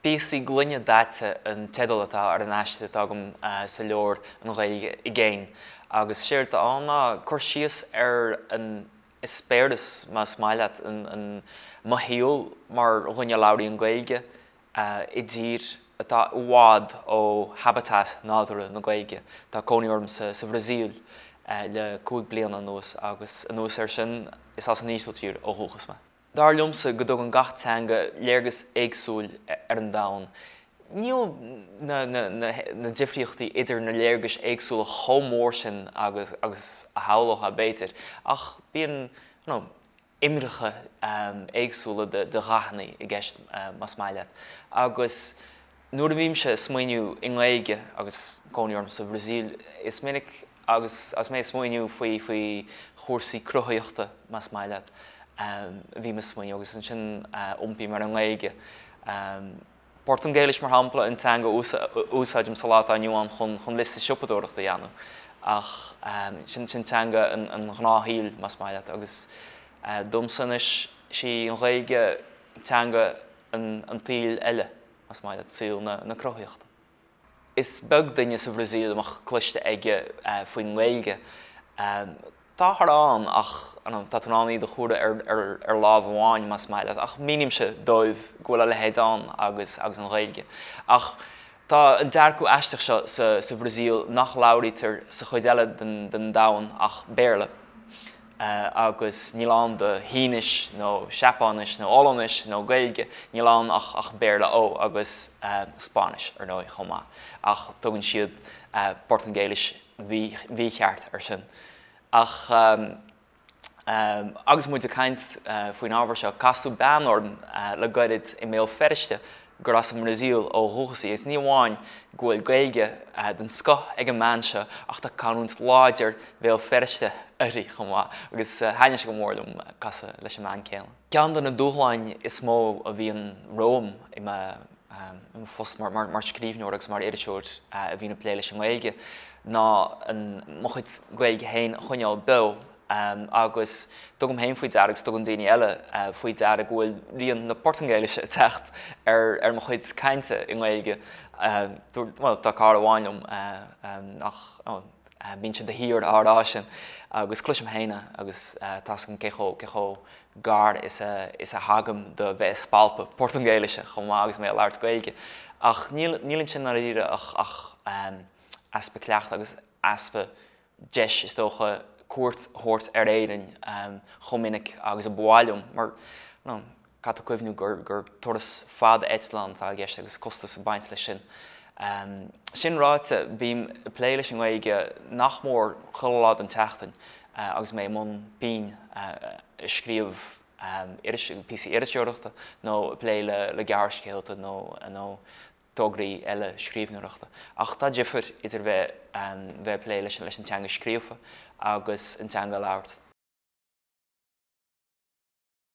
Píosaí Gloine Daite an teideal atá ar an aiste atá agam sa leabhar An Ghaeilge i gCéin agus séard atá ann ná cur síos ar an eispéireas, más maith leat, an mo shaol mar dhuine a labhraíonn Gaeilge i dtír atá i bhfad ó habitat nádúrtha na Gaeilge. Tá cónaí orm sa Bhrasaíl le 5 bliana anuas agus anuas air sin is as an Ísiltír ó dhúchas mé. Dar liomsa go dtugann gach teanga léargas éagsúil ar an domhan. Níl na difríochtaí idir na léargais éagsúla chomh mór sin agus a shamhlófá, b'fhéidir, ach bíonn imreacha éagsúla de dhathanna i gceist, más maith leat. Agus nuair a bhímse ag smaoineamh i nGaeilge, agus cónaí orm sa Bhrasaíl, is minic Agus agus mé ag smaoineamh faoi faoi chúrsaí cruthaitheachta, más maith leat, bhím ag smaoineamh agus ansin iompaím ar an nGaeilge. Portaingéilis, mar shampla, an teanga a úsáidim sa lá atá inniu ann chun chun liosta siopadóireachta a dhéanamh. Ach sin sin teanga an an ghnáthshaoil, más maith leat. Agus domsa anois, sí an Ghaeilge teanga an an tsaoil eile, más maith leat, saol na na cruthaitheachta. Is beag duine sa Bhrasaíl a mbeadh cloiste aige faoin nGaeilge. Táthar ann ach tá tú in ann iad a chomhaireamh ar lámh amháin, más maith leat, ach mínímse dóibh go bhfuil a leithéid ann agus agus an Ghaeilge. Ach tá an dearcadh aisteach seo sa Bhrasaíl nach labhraítear sa chuid eile den domhan ach Béarla. agus níl ann do Shínis nó Seapáinis nó Ollainnis nó Gaeilge, níl ann ach ach Béarla, ó agus Spáinnis ar ndóigh chomh maith, ach tugann siad Portaingéilis mhícheart air sin. Ach agus muid ag caint faoin ábhar seo, casadh bean orm le gairid i mBéal Feirste gur as an mBrasaíl ó dhúchas í, agus ní amháin go bhfuil Gaeilge den scoth ag an mbean seo ach tá canúint láidir Bhéal Feirste uirthi chomh maith, agus thaitnigh sé go mór liom casadh leis an mbean céanna. Ceann de na dúshláin is mó a bhíonn romham i mo phost mar scríbhneoir agus mar iriseoir a bhíonn ag plé leis an nGaeilge ná mo chuid Gaeilge féin a choinneáil beo. Agus tugaim féin faoi deara agus tugann daoine eile faoi deara go bhfuil rian na Portaingéilise ag teacht ar mo chuid cainte i nGaeilge. Bhuel, tá cara amháin liom nach mbíonn sé de shíor á rá sin agus cloisim féin é agus tá 'fhios agam cé chomh cé chomh gar is a is a thagaim do bheith ag spalpadh Portaingéilise chomh maith agus mé ag labhairt Gaeilge. Ach níl níl ansin ndáiríre ach ach easpa cleachtaidh agus easpa deis, is dócha, cuairt a thabhairt ar Éirinn chomh minic agus a ba mhaith liom, mar caithfidh tú cuimhniú gur turas fada eitleáin atá i gceist agus costas ag baint leis sin. Sin ráite, bím ag plé leis an nGaeilge nach mór chuile lá den tseachtain agus mé i mbun pinn ag scríobh píosaí iriseoireachta nó ag plé le gearrscéalta nó tograí eile scríbhneoireachta. Ach tá difear idir bheith bheith ag plé leis an teanga scríofa agus an teanga a labhairt.